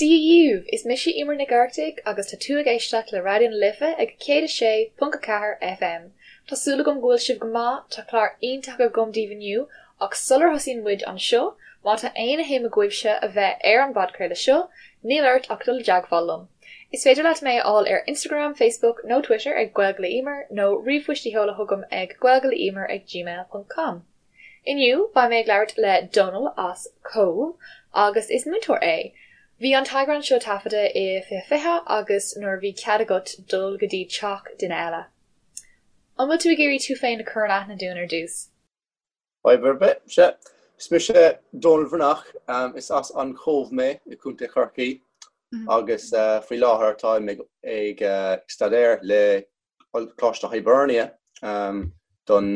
Dia dhaoibh! Is mise Emer Nic Oireachtaigh agus tá tú ag éisteacht le Raidió na Life ag 106.4 FM. Tá súil agam go bhfuil sibh go maith, tá clár iontach agam daoibh inniu ach sular thosaíonn muid anseo, má tá aon shuim agaibhse a bheith ar an bpodchraoladh seo, níl ort ach dul i dteagmháil liom. Is féidir leat mé a fháil ar Instagram, Facebook nó Twitter ag Gaeilge le Emer nó ríomhphoist a sheoladh chugam ag gaeilgeleemer ag gmail ponc com. Inniu, beidh mé ag labhairt le Dónal as Cóbh agus is múinteoir é. Bhí an t-eagrán seo taifeadta i 2020 agus nuair a bhí cead agat dul go dtí teach duine eile. An bhfuil tú ag iarraidh tú féin a chur in aithne dúinn ar dtús? Fadhb ar bith, sea. Is mise Dónal Bhreathnach, is as an Chóbh mé i gContae Chorcaí agus faoi láthair táim ag staidéar le Coláiste Hibernia don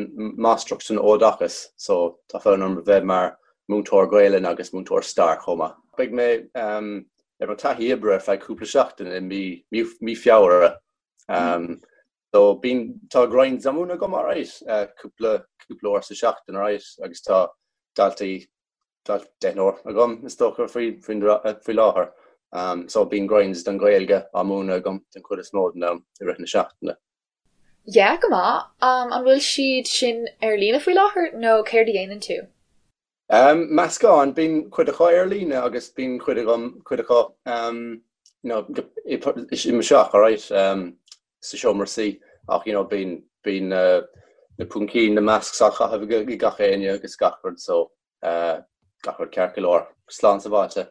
Máistreacht san Oideachas so tá fonn orm a bheith mar múinteoir Gaelainn agus múinteoir stair chomh maith. Beidh mé ar mo taithí oibre ar feadh cúpla seachtain i mí Feabhra. So bíonn, tá grinds á múineadh agam alright, cúpla cúpla uair sa seachtain alright agus tá daltaí deichniúr agam is dócha faoi faoi láthair. So bíonn grinds don Ghaeilge á múineadh agam den chuid is mó den am i rith na seachtaine. Yeah, go maith. An bhfuil siad sin ar líne faoi láthair nó céard a dhéanann tú? Meascán, bíonn cuid acu ar líne agus bíonn cuid agam, cuid acu you know i mo theach alright sa seomra suí ach you know bíonn bíonn na púcaí, na masks á chaitheamh ag gach éinne agus gach rud so gach rud ceart go leor, slán sábháilte.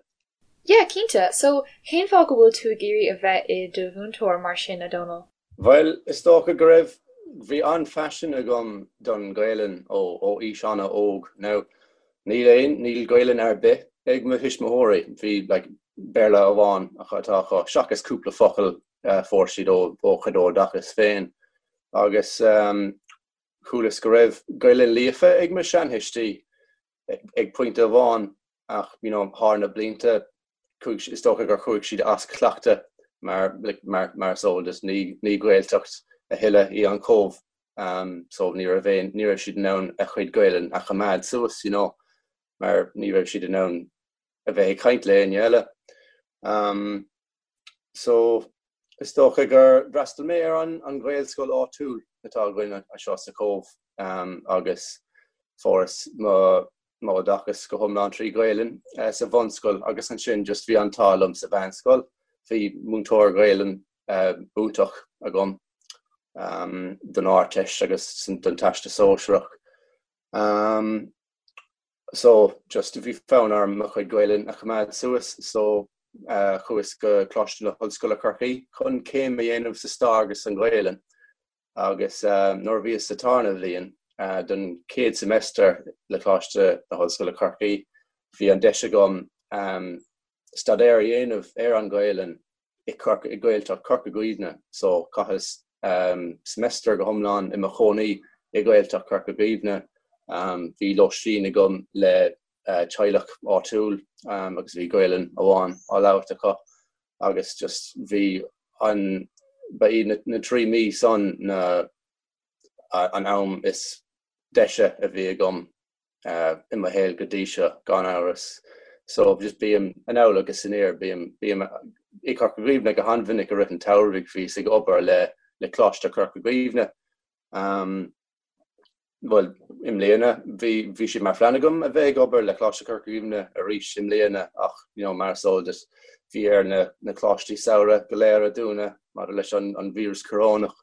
Yeah, cinnte. So, cén fáth go bhfuil tú ag iarraidh a bheith i do mhúinteoir mar sin, a Dhónaill? Bhuel, is dócha go raibh, bhí an-phaisean agam don Ghaelainn ó ó aois an-óg. Now, níl aon, níl Gaelainn ar bith ag mo thuismitheoirí, bhí like Béarla amháin atá acu, seachas cúpla focal a fuair siad ó ó chuid oideachas féin. Agus chualas go raibh Gaelainn líofa ag mo seanthuistí ag pointe amháin ach you know thar na blianta chuaigh is dócha gur chuaigh siad as cleachtadh mar like mar mar is eol duit ní ní Gaeltacht a thuilleadh í an Cóbh um so ní raibh aon ní raibh siad in ann a chuid Gaelainn a choimeád suas you know mar ní raibh siad in ann a bheith ag caint le éinne eile. Um So, is dócha gur fhreastail mé ar an an Ghaelscoil áitiúil atá againn anseo sa Chóbh agus fuaireas mo m'oideachas go hiomlán trí Ghaelainn sa bhunscoil agus ansin just bhí an t-ádh liom sa mheánscoil, bhí múinteoir Gaelainn iontach agam don Ardteist agus don Teastas Sóisearach. So, just, bhí fonn orm mo chuid Gaelainn a choimeád suas so chuas go Coláiste na hOllscoile Corcaigh chun céim a dhéanamh sa stair agus san Ghaelainn agus nuair a bhíos sa tarna bhliain don chéad semester le Coláiste na hOllscoile Corcaigh bhí an deis agam staidéar a dhéanamh ar an Ghaelainn i Corca, i Gaeltacht Chorca Dhuibhne so chaitheas semester go hiomlán i mo chónaí i Gaeltacht Chorca Dhuibhne. Bhí lóistín agam le teaghlach áitiúil agus bhí Gaelainn amháin á labhairt acu agus just bhí an, ba iad na 3 mí san na an am is deise a bhí agam i mo shaol go dtí seo, gan amhras. So just bím anall agus aniar, bím, bím i Corca Dhuibhne go han-mhinic i rith an tsamhraidh, bhíos ag obair le, le Coláiste Chorca Dhuibhne. Um, bhuel, i mbliana, bhí, bhí sé mar phlean agam a bheith ag obair le Coláiste Chorca Dhuibhne arís i mbliana ach, you know, mar is eol duit, bhí ar na, na coláistí samhraidh go léir a dúnadh maidir leis an, an víreas corónach.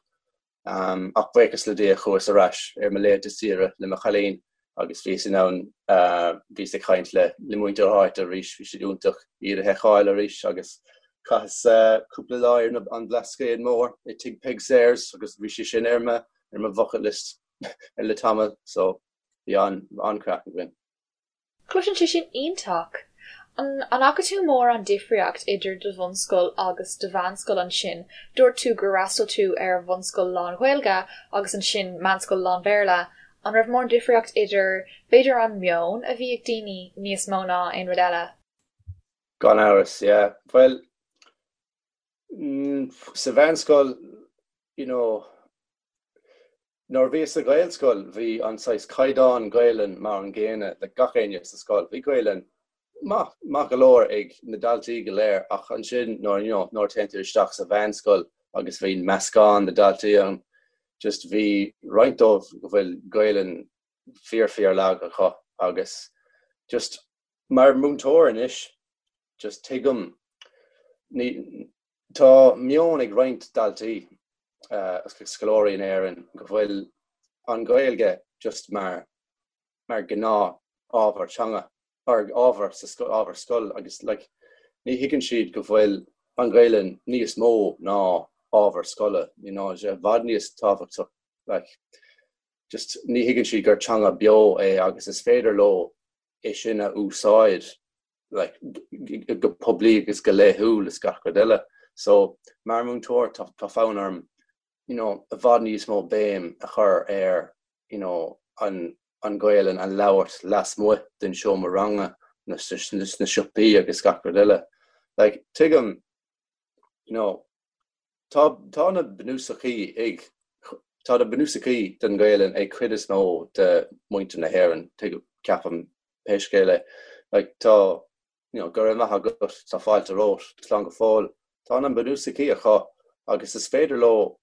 Ach buíochas le Dia chuas ar ais ar mo laethanta saoire le mo chailín agus bhíos in ann, bhíos ag caint le muintir na háite arís, bhí siad iontach iad a fheiceáil arís agus chaitheas cúpla lá ar an Bhlascaod Mór i Tigh Peig Sayers agus bhí sé sin ar mo ar mo bhucket list le tamall so bhí an-chraic againn. Cloiseann sé sin iontach! An bhfaca tú mórán difríocht idir do bhunscoil agus do mheánscoil ansin? Dúirt tú gur fhreastail tú ar bhunscoil lán-Ghaeilge agus ansin meánscoil lán-Bhéarla. An raibh mórán difríocht idir, b'fhéidir an meon a bhí ag daoine níos mó ná aon rud eile? Gan amhras, yeah. Bhuel, sa mheánscoil, you know, Nuair a bhíos sa Ghaelscoil bhí an saghas caighdeán Gaelainn mar an gcéanna le gach éinne sa scoil. Bhí Gaelainn. maith, maith go leor ag na daltaí go léir ach ansin nuair, you know, nuair a téann tú isteach sa mheánscoil agus bhíonn meascán de daltaí ann, just bhí roinnt dóibh go bhfuil Gaelainn fíor fíor lag acu agus just mar múinteoir anois just tuigim ní tá meon ag roinnt daltaí agus scoláirí in Éirinn go bhfuil an Ghaeilge just mar mar gnáth ábhar teanga or ábhar sa ábhar scoil agus like ní thuigeann siad go bhfuil an Ghaelainn níos mó ná ábhar scoile you know i bhfad níos tábhachtach like just ní thuigeann siad gur teanga beo é agus is féidir leo é sin a úsáid like go poiblí agus go laethúil is gach rud eile. So mar múinteoir tá tá fonn orm you know i bhfad níos mó béim a chur ar you know an an Ghaelainn a labhairt lasmuigh den seomra ranga na sna siopaí agus gach rud eile. Like tuigim you know Tá tá na bunúsachaí ag tá na bunúsachaí den Ghaelainn ag cuid is mó de muintir na hÉireann, tuigim, ceapaim, pé scéal é. Like tá you know go raibh maith agat, tá fáilte romhat, slán go fóill. Tá na bunúsachaí acu agus is féidir leo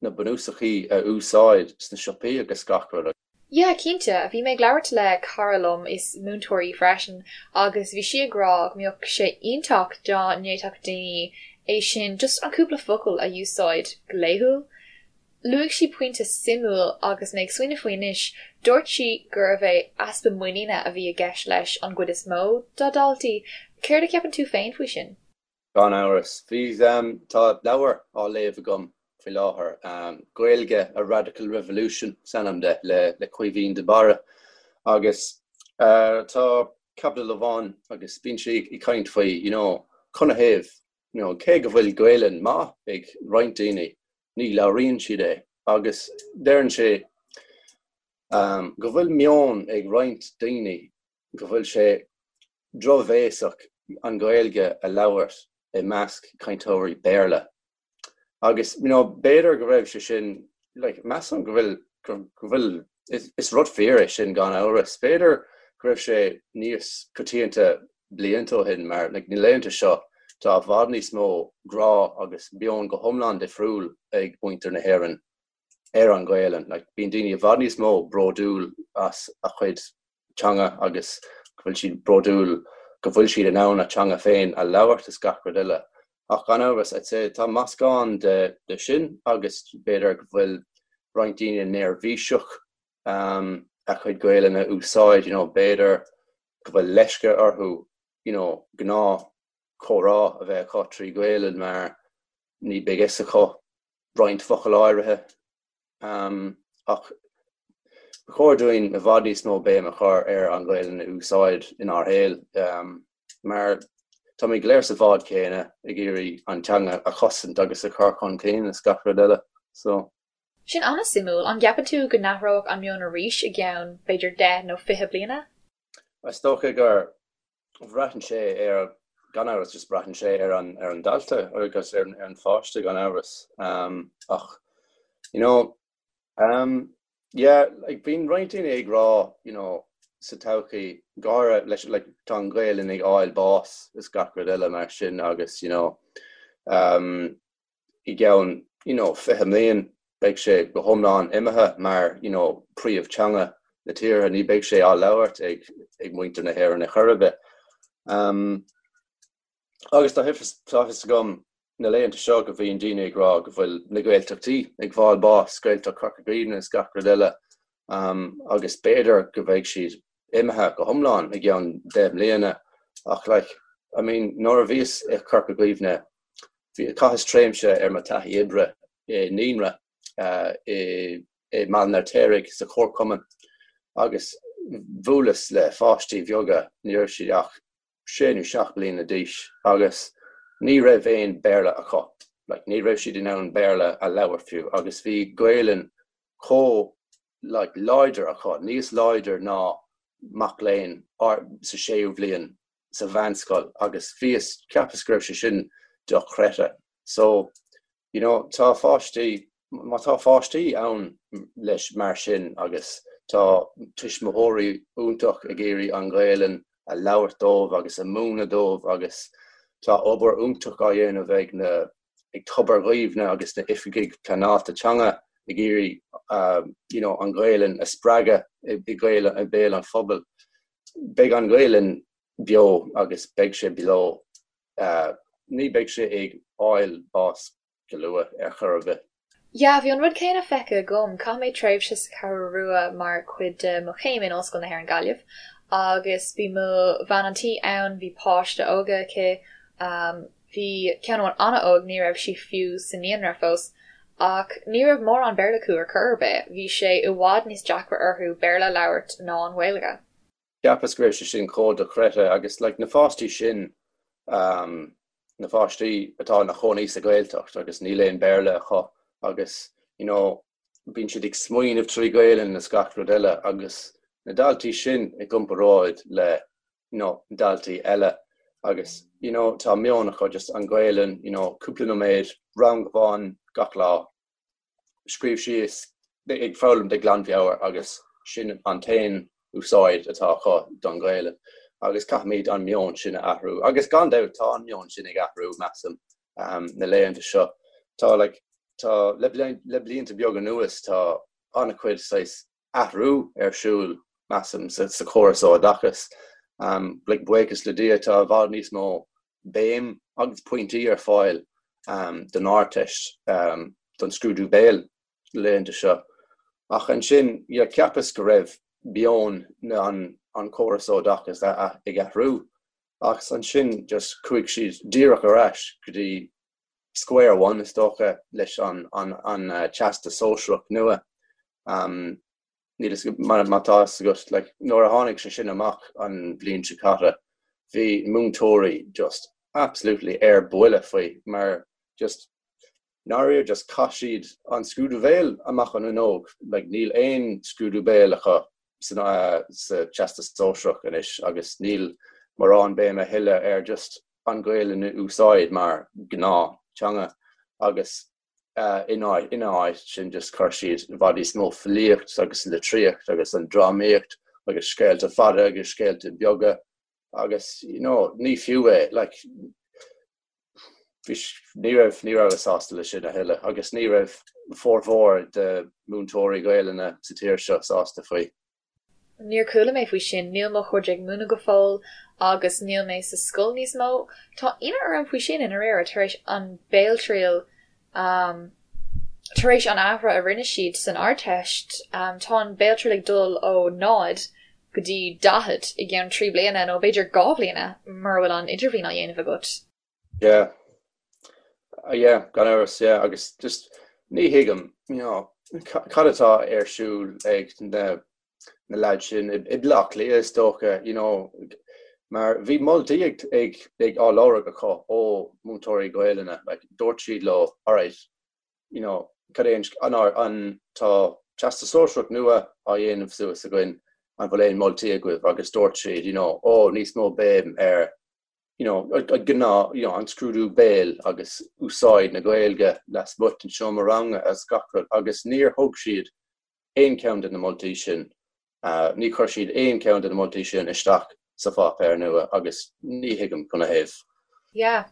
na bunúsachaí a úsáid sna siopaí agus gach rud. Yeah, cinnte. Bhí mé ag labhairt le cara liom, is múinteoir í freisin, agus bhí sí ag rá go mbeadh sé iontach dá ndéanfadh daoine é sin, just an cúpla focal a úsáid go laethúil. Luaigh sí pointe suimiúil agus mé ag smaoineamh faoi anois, dúirt sí gurbh é easpa muiníne a bhí i gceist leis an gcuid is mó dá daltaí. Céard a cheapann tú féin faoi sin? Gan amhras. Bhí, tá leabhar á léamh agam faoi láthair, Gaeilge, A Radical Revolution is ainm de, le le Caoimhín de Barra. Agus tá caibidil amháin agus bíonn sé ag caint faoi, you know, canathaobh, you know, cé go bhfuil Gaelainn maith ag roinnt daoine, ní labhraíonn siad é. Agus deireann sé go bhfuil meon ag roinnt daoine go bhfuil sé drochbhéasach an Ghaeilge a labhairt i measc cainteoirí Béarla. Agus you know, b'fhéidir go raibh sé sin, like, measaim go bhfuil, go bhfuil, is rud fíor é sin gan amhras. B'fhéidir go raibh sé níos coitianta blianta ó shin mar like, na laethanta seo tá i bhfad níos mó grá agus meon go hiomlán difriúil ag muintir na hÉireann ar an Ghaelainn. Like, bíonn daoine i bhfad níos mó bródúil as a chuid teanga agus go bhfuil siad bródúil go bhfuil siad in ann a teanga féin a labhairt is gach rud eile. Ach gan amhras, I'd say, tá meascán de, de sin agus b'fhéidir go bhfuil roinnt daoine neirbhíseach um, a chuid Gaelainne a úsáid, you know, b'fhéidir go bhfuil leisce orthu, you know, gnáth comhrá a bheith acu trí Ghaelainn mar ní beidh fhios acu roinnt focal áirithe. Ach ba chóir dúinn i bhfad níos mó béim a chur ar an Ghaelainn a úsáid inár shaol mar táimid go léir sa bhád céanna ag iarraidh an teanga a chosaint agus a chur chun cinn is gach rud eile. So. Sin an-suimiúil. An gceapann tú go n-athródh an meon arís i gceann, b'fhéidir, deich nó 20 bliana? Is dócha gur Braitheann sé ar, gan amhras, just braitheann sé ar an, ar an dalta agus ar an, ar an pháiste gan amhras. Ach, you know, yeah, like bíonn roinnt daoine ag rá, you know, sa todhchaí, go háirithe leis, like, tá an Ghaelainn ag fháil bás is gach rud eile mar sin agus, you know, i gceann you know 20 mbliain beidh sé go hiomlán imithe mar you know príomh-teanga na tíre, ní beidh sé á labhairt ag ag muintir na hÉireann ar chor ar bith. Um, agus tá tá fhios agam na laethanta seo go bhíonn daoine ag rá go bhfuil na Gaeltachtaí ag fáil bás, Gaeltacht Chorca Dhuibhne is gach rud eile, um, agus b'fhéidir go bheidh siad imithe go hiomlán i gceann 10 mbliana ach like, I mean, nuair a bhíos i Corca Dhuibhne Bhí, chaitheas tréimhse ar mo taithí oibre i naíonra i mBaile an Fheirtéaraigh sa chomharchumann agus bhuaileas le pháistí bheaga, ní raibh siad ach sé nó seacht bliana d'aois agus ní raibh aon Béarla acu, like ní raibh siad in ann Béarla a labhairt fiú agus bhí Gaelainn chomh like láidir acu, níos láidir ná mac léinn sa séú bhliain sa mheánscoil agus bhíos, cheapas go raibh sé sin dochreidte. So, you know, tá pháistí, má tá pháistí ann leis mar sin agus tá tuismitheoirí iontach ag iarraidh an Ghaelainn. A labhairt dóibh agus a múineadh dóibh agus tá obair iontach á dhéanamh ag na ag Tobar Dhuibhne agus na oifigigh pleanáilte teanga ag iarraidh you know an Ghaelainn a spreagadh i i mbéal an phobail. Beidh an Ghaelainn beo agus beidh sé beo. Ní beidh sé ag fháil bás go luath ar chor ar bith. Yeah, bhí an rud céanna feicthe agam. Chaith mé tréimhse sa Cheathrú Rua mar chuid de mo chéim in Ollscoil na hÉireann Gaillimh agus bhí mo bhean an tí ann, bhí páiste óga aici, bhí ceann amháin an-óg, ní raibh sí fiú sa naíonra fós, ach ní raibh mórán Béarla acu ar chor ar bith, bhí sé i bhfad níos deacra orthu Béarla a labhairt ná an Ghaeilge. Cheapas go raibh sé sin chomh dochreidte agus like na pháistí sin um, na pháistí atá ina chónaí sa Ghaeltacht agus níl aon Béarla acu agus you know bíonn siad ag smaoineamh trí Ghaelainn is gach rud eile agus na daltaí sin i gcomparáid le you know daltaí eile agus you know tá meon acu just an Ghaelainn you know cúpla nóiméad rang amháin gach lá scríobh síos ag foghlaim de ghlanmheabhair agus sin an t-aon úsáid atá acu don Ghaelainn agus caithfimid an meon sin a athrú agus gan dabht tá an meon sin ag athrú measaim na laethanta seo. Tá like tá le le blianta beaga anuas tá an-chuid saghas athrú ar siúl measaim sa sa chóras oideachais. Like buíochas le Dia tá i bhfad níos mó béim agus pointí ar fáil don Ardteist, don scrúdú béil na laethanta seo. Ach ansin, yeah, cheapas go raibh meon an chóras oideachais ag athrú ach ansin just chuaigh siad díreach ar ais go dtí square one is dócha leis an Teastas Sóisearach nua. Níl a fhios agam má tá fhios agat, like, nuair a tháinig sé sin amach an bhliain seo caite, bhí múinteoirí just absolutely ar buile faoi mar just ndáiríre just chaith siad an scrúdú béil amach an fhuinneog, like, níl aon scrúdú béil acu san, sa Teastas Sóisearach anois agus níl mórán béim a thuilleadh ar just an Ghaelainn a úsáid mar gnáth teanga agus Ina áit sin just chuir siad i bhfad níos mó filíocht agus litríocht agus an drámaíocht agus scéalta fada agus scéalta beaga agus you know ní fiú é like ní raibh ní rabhas sásta leis sin a thuilleadh agus ní raibh formhór de múinteoirí Gaelainne sa tír seo sásta faoi. Níor chuala mé faoi sin, níl mo chuid ag múineadh go fóill agus níl mé sa scoil níos mó. Tá ionadh orm faoi sin i ndáiríre, tar éis an béaltriail, tar éis an athrú a rinne siad san Ardteist, tá an béaltriail ag dul ó 0 go dtí 40 i gceann 3 bliana nó b'fhéidir 2 bhliana mura bhfuil an idirbhliain á dhéanamh agat. Yeah. Yeah, gan amhras, yeah, agus just ní thuigim, you know, cad atá ar siúl ag na na lads sin i mBaile Átha Cliath is dócha, you know, mar bhí moltaí ag ag ag á lorg acu ó múinteoirí Gaelainne, like dúirt siad leo, alright, you know, cad é an an tá Teastas Sóisearach nua á dhéanamh suas againn, an bhfuil aon moltaí agaibh agus dúirt siad, you know, oh níos mó béim ar you know, gnáth, you know, an scrúdú béil agus úsáid na Gaeilge lasmuigh den seomra ranga agus gach rud agus níor thug siad aon cheann de na moltaí sin, ní chuir siad aon cheann de na moltaí sin isteach sa pháipéar nua agus ní thuigim canathaobh. Yeah.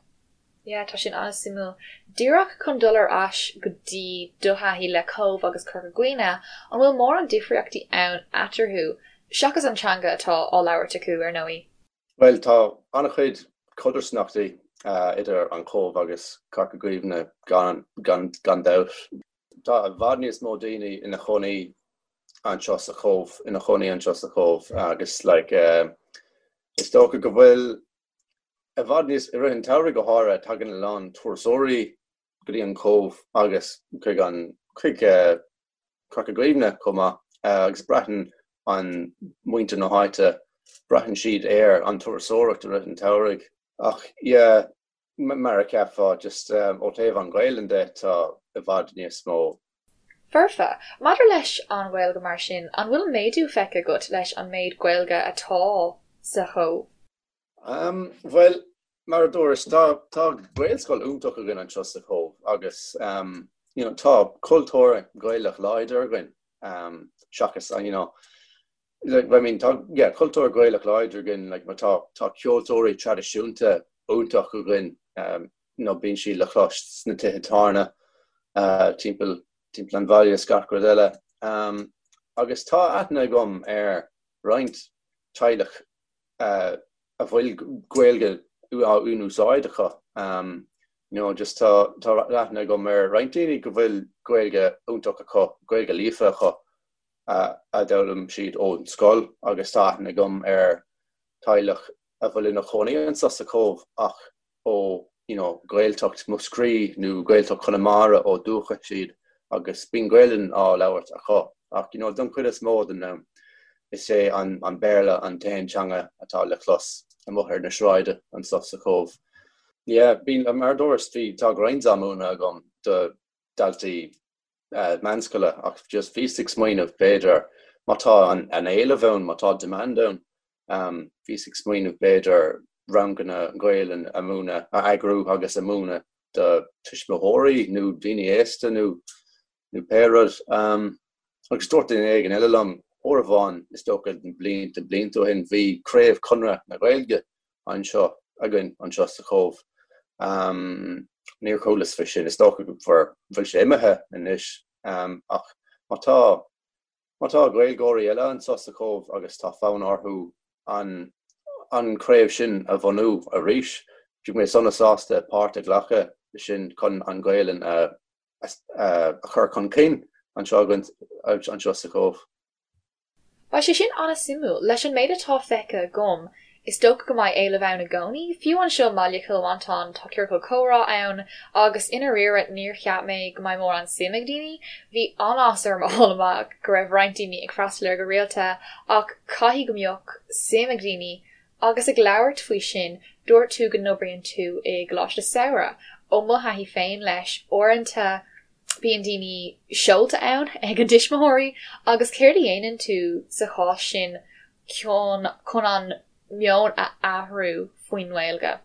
Yeah, tá sin an-suimiúil. Díreach chun dul ar ais go dtí do thaithí le Cóbh agus Corca Dhuibhne, an bhfuil mórán difríochtaí ann eatarthu, seachas an teanga atá á labhairt acu, ar ndóigh? Bhuel, tá an-chuid codarsnachtaí idir an Chóbh agus Corca Dhuibhne gan dabht. Tá i bhfad níos mó daoine ina chónaí anseo sa Chóbh, ina chónaí anseo sa Chóbh agus like is dócha go bhfuil i bhfad níos, i rith an tsamhraidh go háirithe, tagann a lán turasóirí go dtí an Chóbh agus chuig an, chuig Corca Dhuibhne chomh maith agus braitheann an muintir na háite, braitheann siad ar an turasóireacht i rith an tsamhraidh. Ach yeah, mar a cheapfá, just ó thaobh an Ghaelainn de, tá i bhfad níos mó. Foirfe. Maidir leis an Ghaeilge mar sin, an bhfuil méadú feicthe agat leis an méid Gaeilge atá sa Chóbh? Bhuel, mar a dúras, tá tá Gaelscoil iontach againn anseo sa Chóbh agus you know tá cultúr Gaelach láidir againn seachas you know. Like, I mean, tá, yeah, cultúr Gaelach láidir againn, like, mar tá, tá ceoltóirí traidisiúnta iontach againn, um, you know, bíonn siad le clos sna tithe tábhairne, uh, timpeall, timpeall an bhaile is gach rud eile. Um, agus tá aithne agam ar roinnt teaghlach uh, a bhfuil Gaeilge á in-úsáid acu. Um, you know, just tá, tá aithne agam ar roinnt daoine go bhfuil Gaeilge iontach acu, Gaeilge líofa acu, a d'fhoghlaim siad ón scoil agus tá aithne agam ar teaghlach a bhfuil ina chónaí anseo sa Chóbh ach ó you know Gaeltacht Mhúscraí nó Gaeltacht Chonamara ó dúchas iad agus bíonn Gaelainn á labhairt acu ach you know don chuid is mó den am is é an an Béarla an t-aon teanga atá le clos amuigh ar na sráide anseo sa Chóbh. Yeah, bíonn mar a dúras bhí tá grinds á múineadh agam do daltaí meánscoile ach just bhíos ag smaoineamh b'fhéidir má tá an éileamh ann, má tá demand ann, bhíos ag smaoineamh b'fhéidir ranganna Gaelainn a múineadh, a eagrú agus a múineadh do tuismitheoirí nó daoine aosta nó nó pé rud. Agus dúirt duine éigin eile liom uair amháin, is dócha blianta blianta ó shin, bhí craobh Chonradh na Gaeilge anseo againn anseo sa Chóbh. Níor chualas faoi sin, is dócha go bhfuil sé imithe anois ach má tá má tá Gaeilgeoirí eile anseo sa Chóbh agus tá fonn orthu an an chraobh sin a bhunú arís, bheadh mé sona sásta páirt a ghlacadh sin chun an Ghaelainn a a chur chun cinn anseo againn anseo sa Chóbh. Beidh sé sin an-suimiúil. Leis an méid atá feicthe agam, is dócha go mbeidh éileamh ann i gcónaí. Fiú anseo i mbaile Chill Mhantáin, tá ciorcal comhrá ann agus i ndáiríre níor cheap mé go mbeidh mórán suim ag daoine. Bhí an-áthas orm a fháil amach go raibh roinnt daoine ag freastal air go rialta ach caithfidh go mbeadh suim ag daoine. Agus ag labhairt faoi sin, dúirt tú go n-oibríonn tú i gcoláiste samhraidh. Ó mo thaithí féin leis, uaireanta, Bíonn daoine seolta ann ag a dtuismitheoirí agus céard a dhéanann tú sa chás sin chun chun an meon a athrú faoin nGaeilge?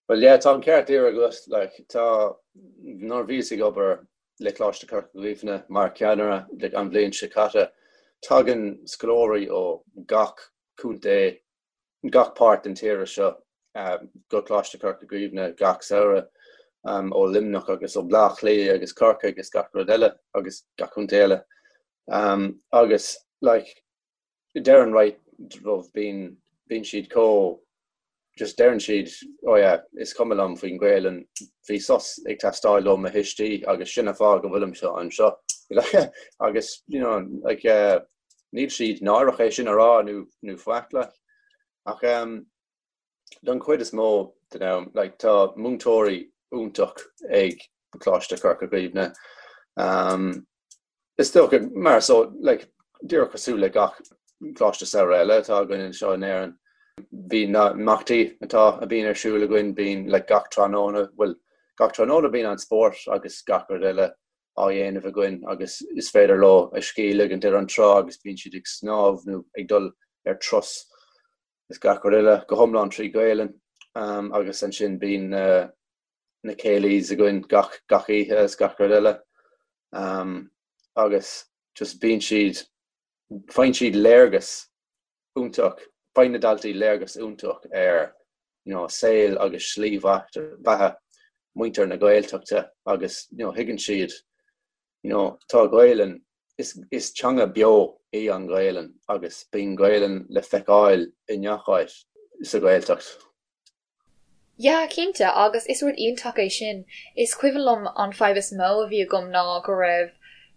Well yeah, tá an ceart díreach agat, like tá, nuair a bhíos ag obair le Coláiste Chorca Dhuibhne mar cheannaire like an bhliain seo caite, tagann scoláirí ó gach contae gach páirt den tíre seo go Coláiste Chorca Dhuibhne gach samhradh, ó Luimneach agus ó Bleá Cliath agus Corcaigh agus gach rud eile agus gach contae eile. Agus like deireann roinnt díobh bíonn bíonn siad chomh just deireann siad oh yeah is cuma liom faoin Ghaelainn bhí sos ag teastáil ó mo thuistí agus sin an fáth go bhfuilimse anseo agus you know like uh, Níl siad náireach é sin a rá nó nó faic like. Ach em don chuid is mó den am like tá múinteoirí iontach ag Coláiste Chorca Dhuibhne. Um is dócha mar so like díreach cosúil le gach coláiste samhraidh eile atá againn anseo in Éirinn. Bíonn na imeachtaí atá a bhíonn ar siúl againn bíonn like gach tráthnóna bhuel gach tráthnóna bíonn an spórt agus gach rud eile á dhéanamh againn agus is féidir leo a scíth a ligint ar an trá agus bíonn siad ag snámh nó ag dul ar turas is gach rud eile go hiomlán trí Ghaelainn agus ansin bíonn na céilís againn gach gach oíche is gach rud eile agus just bíonn siad faigheann siad léargas iontach, faigheann na daltaí léargas iontach ar you know saol agus slí bheatha muintir na Gaeltachta agus you know thuigeann siad you know tá Gaelainn, is is teanga beo í an Ghaelainn agus bíonn Gaelainn le feiceáil i ngach áit sa Ghaeltacht. Yeah, cinnte, agus is rud iontach é sin. Is cuimhin liom an fadhb is mó a bhí agam ná go raibh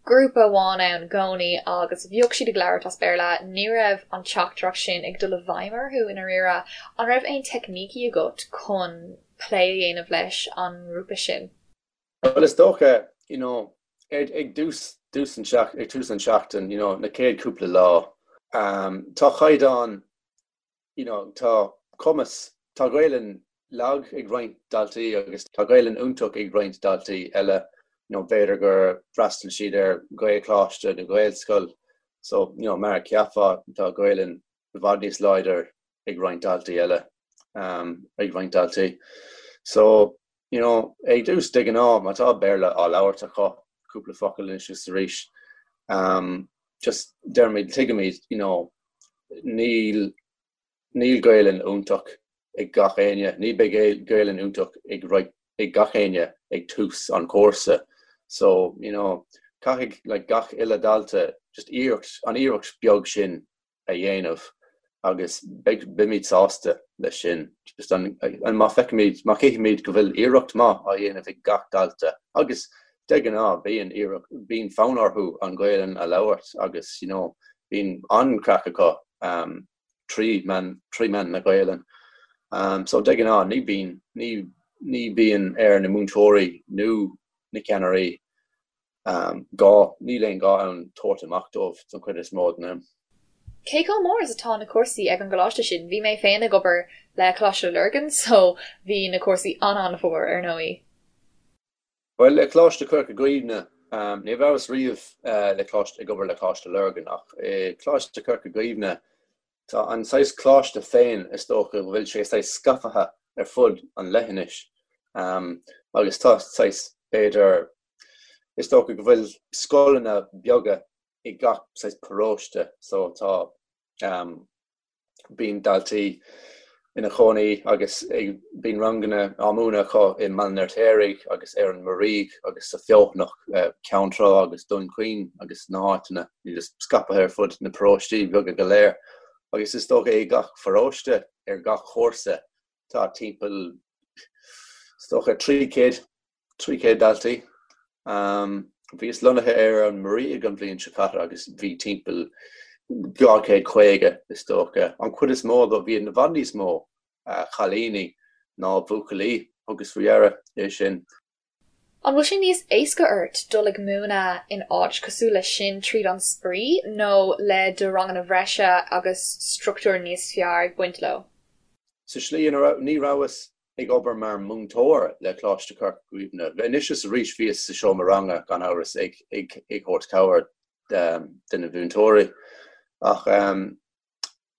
grúpa amháin ann i gcónaí agus bhíodh siad ag labhairt as Béarla, ní raibh an teachtaireacht sin ag dul i bhfeidhm orthu i ndáiríre. An raibh aon teicnící agat chun plé a dhéanamh leis an ngrúpa sin? Bhuel is dócha, you know, ag ag dtús dtús an ag tús an seachtain, you know, na chéad cúpla lá, um, tá caighdeán you know, tá cumas, tá Gaelainn lag ag roinnt daltaí agus tá Gaelainn iontach ag roinnt daltaí eile, you know, b'fhéidir gur fhreastail siad ar Ghaelcholáiste nó Gaelscoil so, you know, mar a cheapfá tá Gaelainn i bhfad níos láidir ag roinnt daltaí eile, um, ag roinnt daltaí. So, you know, ag dtús de ghnáth má tá Béarla á labhairt acu, cúpla focal anois is arís, um, Just deirimid, tuigimid, you know, níl, níl Gaelainn iontach ag gach éinne, ní beidh Gaelainn iontach ag right ag gach éinne ag tús an chúrsa. So, you know, caithfidh like gach uile dalta just iarracht, an iarracht beag sin a dhéanamh agus beidh, beimid sásta leis sin. Just an, an má feicimid, má chífimid go bhfuil iarracht maith á dhéanamh ag gach dalta agus de ghnáth bíonn iarracht, bíonn fonn orthu an Ghaelainn a labhairt agus, you know, bíonn an-chraic acu um, trí mheán, trí mheán na Gaelainn. Um, so de ghnáth ní bíonn, ní, ní bíonn ar na múinteoirí nó na ceannairí um, gá, níl aon gá ann tabhairt amach dóibh don chuid is mó den am. Cé chomh mór is atá na cúrsaí ag an gcoláiste sin? Bhí mé féin ag obair le Coláiste Lurgan so bhí na cúrsaí an-an-mhór ar ndóigh. Bhuel, le Coláiste Chorca Dhuibhne, ní rabhas riamh le Coláiste, ag obair le Coláiste Lurgan, ach i Coláiste Chorca Dhuibhne, tá an saghas coláiste féin, is dócha go bhfuil sé saghas scaipthe ar fud an leithinis, agus tá saghas, b'fhéidir, is dócha go bhfuil scoileanna beaga i gach saghas paróiste, so tá. Bíonn daltaí ina chónaí agus bíonn ranganna á múineadh acu i mBaile an Fheirtéaraigh agus ar an Muirígh agus sa Feothanach, Ceann Trá agus Dún Chaoin agus na háiteanna just scaipthe ar fud na paróistí beaga go léir. Agus is dócha i gach pharóiste ar gach chúrsa tá timpeall is dócha 300 300 daltaí. Bhíos lonnaithe ar an Muirígh an bhliain seo caite agus bhí timpeall 250 is dócha. An chuid is mó dó, bhí i bhfad níos mó cailíní ná buachaillí, thugas faoi deara é sin. An bhfuil sé níos éasca ort dul ag múineadh in áit cosúil leis sin tríd an spraoi nó le do ranganna bhreise agus struchtúr níos fearr ag baint leo? Sa slí ina raibh, ní rabhas ag obair mar mhúinteoir le Coláiste Chorca Dhuibhne. Anois is arís bhíos sa seomra ranga, gan amhras, ag ag thabhairt cabhair do na mhúinteoirí. Ach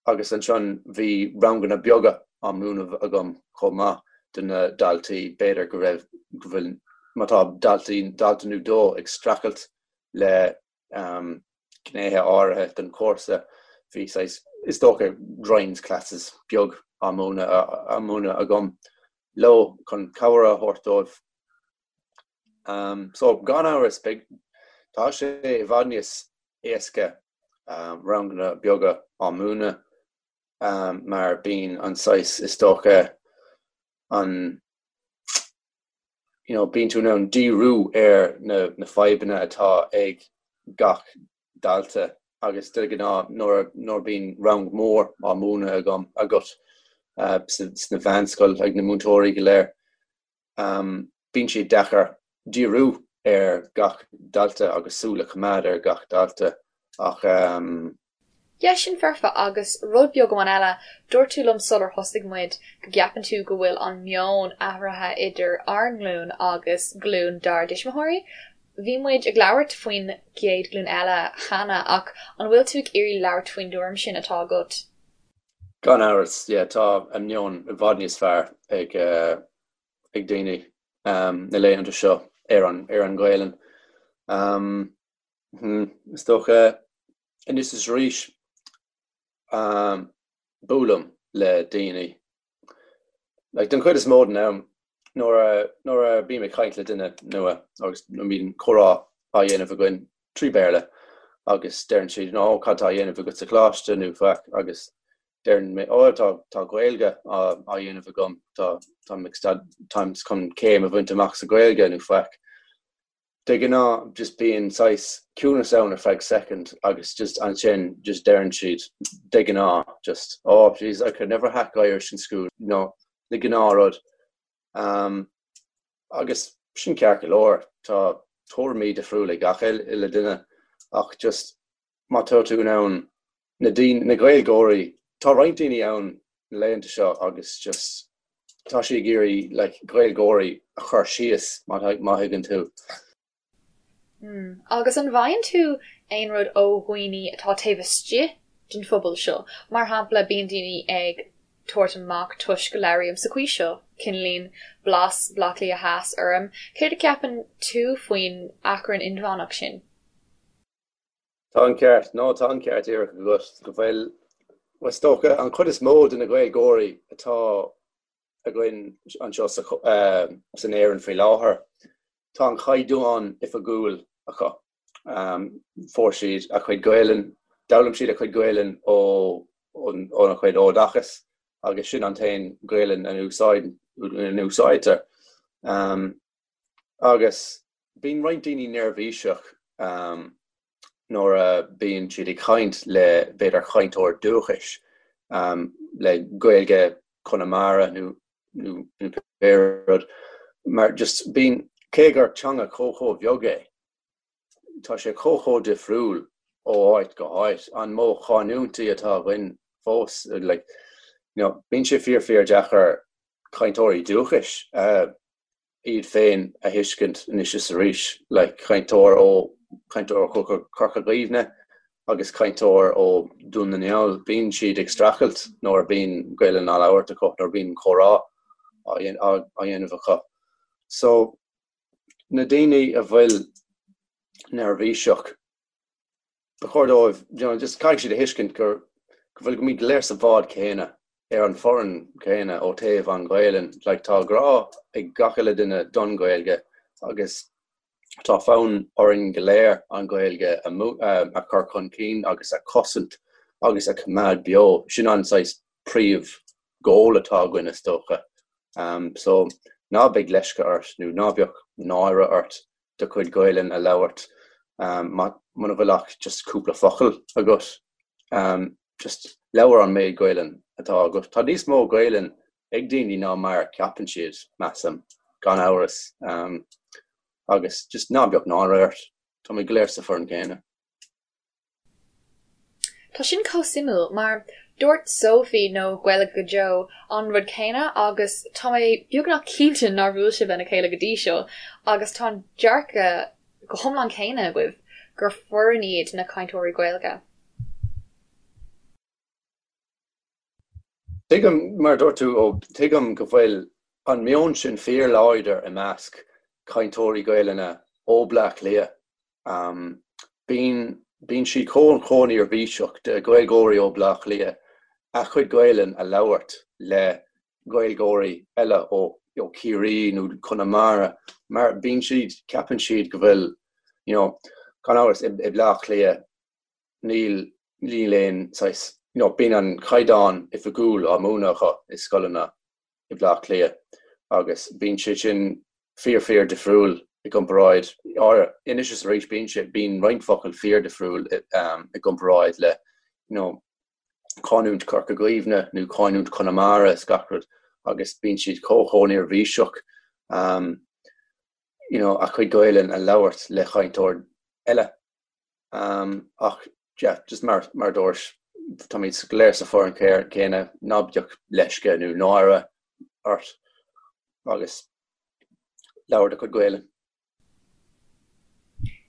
agus ansin bhí ranganna beaga á múineadh agam chomh maith do na daltaí. B'fhéidir go raibh, go bhfuil, má tá daltaí, dalta nó dó ag streachailt le gnéithe áirithe den chúrsa. Bhí saghas, is dócha, grinds classes beag á múineadh á múineadh agam leo chun cabhair a thabhairt dóibh. So, gan amhras, beidh, tá sé i bhfad níos éasca ranganna beaga á múineadh mar bíonn an saghas, is dócha, an, you know, bíonn tú in ann díriú ar na, na fadhbanna atá ag gach dalta agus de ghnáth nuair, nuair bíonn rang mór á múineadh agam, agat uh, sna mheánscoil ag na múinteoirí go léir, um, bíonn sé deacair díriú ar gach dalta agus súil a choimeád ar gach dalta ach um, Yeah, sin foirfe. Agus rud beag amháin eile, dúirt tú liom sular thosaigh muid go gceapann tú go bhfuil an meon athraithe idir ár nglúin agus glúin dár dtuismitheoirí. Bhí muid ag labhairt faoin gcéad ghlúin eile cheana ach an bhfuil tú ag iarraidh labhairt faoin dtuairim sin atá agat? Gan amhras, yeah, tá an meon i bhfad níos fearr ag ag daoine na laethanta seo ar an ar an Ghaelainn. Is dócha anois is arís buailim le daoine. Like den chuid is mó den am nuair a nuair a bím ag caint le duine nua agus nuair a bíonn comhrá á dhéanamh againn trí Bhéarla agus deireann siad oh cad tá á dhéanamh agat sa choláiste nó faic agus deireann mé oh tá tá Gaeilge á á dhéanamh agam tá táim ag staid táim chun céim a bhaint amach sa Ghaeilge nó faic. De ghnáth just bíonn saghas ciúnas ann ar feadh soicind agus just ansin just deireann siad de ghnáth just oh jeez I could never hack Irish in school you know na gnáthrud. Um, agus sin ceart go leor, tá tuairimí difriúla ag gach uile duine ach just má tá tú in ann na daoine, na Gaeilgeoirí, tá roinnt daoine ann na laethanta seo agus just tá siad ag iarraidh like Gaeilgeoirí a chur síos má má thuigeann tú. Mm. Agus an bhfaigheann tú aon rud ó dhaoine atá taobh istigh den phobal seo? Mar shampla, bíonn daoine ag tabhairt amach toisc go labhraím sa chaoi seo, cineáilín blas Bhaile Átha Cliath Theas orm. Céard a cheapann tú faoin achrann inmheánach sin? Tá an ceart, no, tá an ceart díreach agat go bhfuil, is dócha, an chuid is mó de na Gaeilgeoirí atá againn anseo san Éirinn faoi láthair, tá an chaighdeán oifigiúil acu. Fuair siad a chuid Gaelainn, d'fhoghlaim siad a chuid Gaelainn ó óna chuid oideachas agus sin an t-aon Ghaelainn a úsáidtear. Agus bíonn roinnt daoine neirbhíseach nuair a bíonn siad ag caint le b'fhéidir cainteoir dúchais le Gaeilge Chonamara nó nó pé rud mar just bíonn cé gur teanga chomh chomh bheag é tá sé chomh chomh difriúil ó áit go háit. An modh canúintí atá againn fós like you know bíonn sé fíor fíor deacair cainteoirí dúchais a iad féin a thuiscint anois is arís, like cainteoir ó cainteoir ó Chorca Dhuibhne agus cainteoir ó Dún na nGall, bíonn siad ag streachailt nuair a bíonn Gaelainn á labhairt acu, nuair a bíonn comhrá á dhéanamh acu. So, na daoine a bhfuil neirbhíseach, ba chóir dóibh, you know, just caithfidh siad a thuiscint gur, go bhfuil, go mbímid go léir sa bhád céanna, ar an foireann céanna ó taobh an Ghaelainn. Like, tá grá ag gach uile duine don Ghaeilge agus tá fonn orainn go léir an Ghaeilge a, a chur chun cinn agus a chosaint agus a choimeád beo. Sin an saghas príomh goal atá againn is dócha. Um, so ná beidh leisce ort nó ná beadh náire ort do chuid Gaelainn a labhairt muna bhfuil ach just cúpla focal agat. Just labhair an méid Gaelainn atá agat. Tá níos mó Gaelainn ag daoine ná mar a ceapann siad, measaim, gan amhras. Agus just ná beadh náire ort. Táimid go léir sa foireann céanna. Tá sin chomh suimiúil, mar dúirt Sophie nó Gaeilge go Deo an rud céanna agus tá mé beagnach cinnte nár bhuail sibh lena chéile go dtí seo agus tá an dearcadh go hiomlán céanna agaibh gur foireann iad na cainteoirí Gaeilge. Tuigim, mar a dúirt tú, ó, tuigim go bhfuil an meon sin fíorláidir i measc cainteoirí Gaelainne ó Bleá Cliath. Bíonn, bíonn siad chomh, chomh neirbhíseach de Ghaeilgeoirí ó Bleá Cliath a chuid Gaelainn a labhairt le Gaeilgeoirí eile ó, ó Chiarraí nó Conamara mar bíonn siad, ceapann siad go bhfuil, you know, gan amhras i, i Bleá Cliath níl, níl aon saghas, you know, bíonn an caighdeán oifigiúil á múineadh acu i scoileanna i Bleá Cliath agus bíonn sé sin fíor fíor difriúil i gcomparáid, anois is arís bíonn sé, bíonn roinnt focal fíor difriúil i gcomparáid le you know canúint Chorca Dhuibhne nó canúint Chonamara is gach rud agus bíonn siad chomh chomh neirbhíseach you know a chuid Gaelainn a labhairt le chainteoir eile. Ach yeah, just mar mar dúirt, táimid go léir sa foireann céanna, ná bíodh leisce nó náire ort agus labhair do chuid Gaelainn.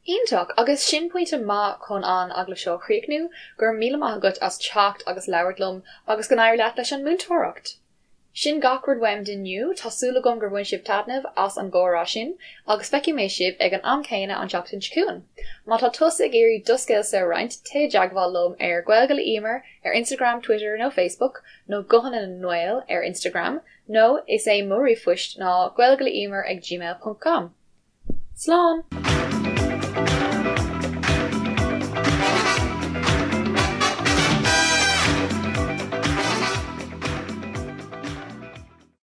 Iontach! Agus sin pointe maith chun an agallamh seo a chríochnú. Go raibh míle maith agat as teacht agus labhairt liom agus go n-éirí leat leis an múinteoireacht! Sin gach rud uaim d'inniu, tá súil agam gur bhain sibh taitneamh as an gcomhrá sin, agus feicfidh mé sibh ag an am céanna an tseachtain seo chugainn. Má tá tusa ag iarraidh do scéalsa a roinnt, téigh i dteagmháil liom ar Gaeilge le Emer ar Instagram, Twitter nó Facebook, nó Guthanna na nGael ar Instagram, nó is é mo ríomhphoist ná gaeilgeleemer ag gmail ponc com. Slán!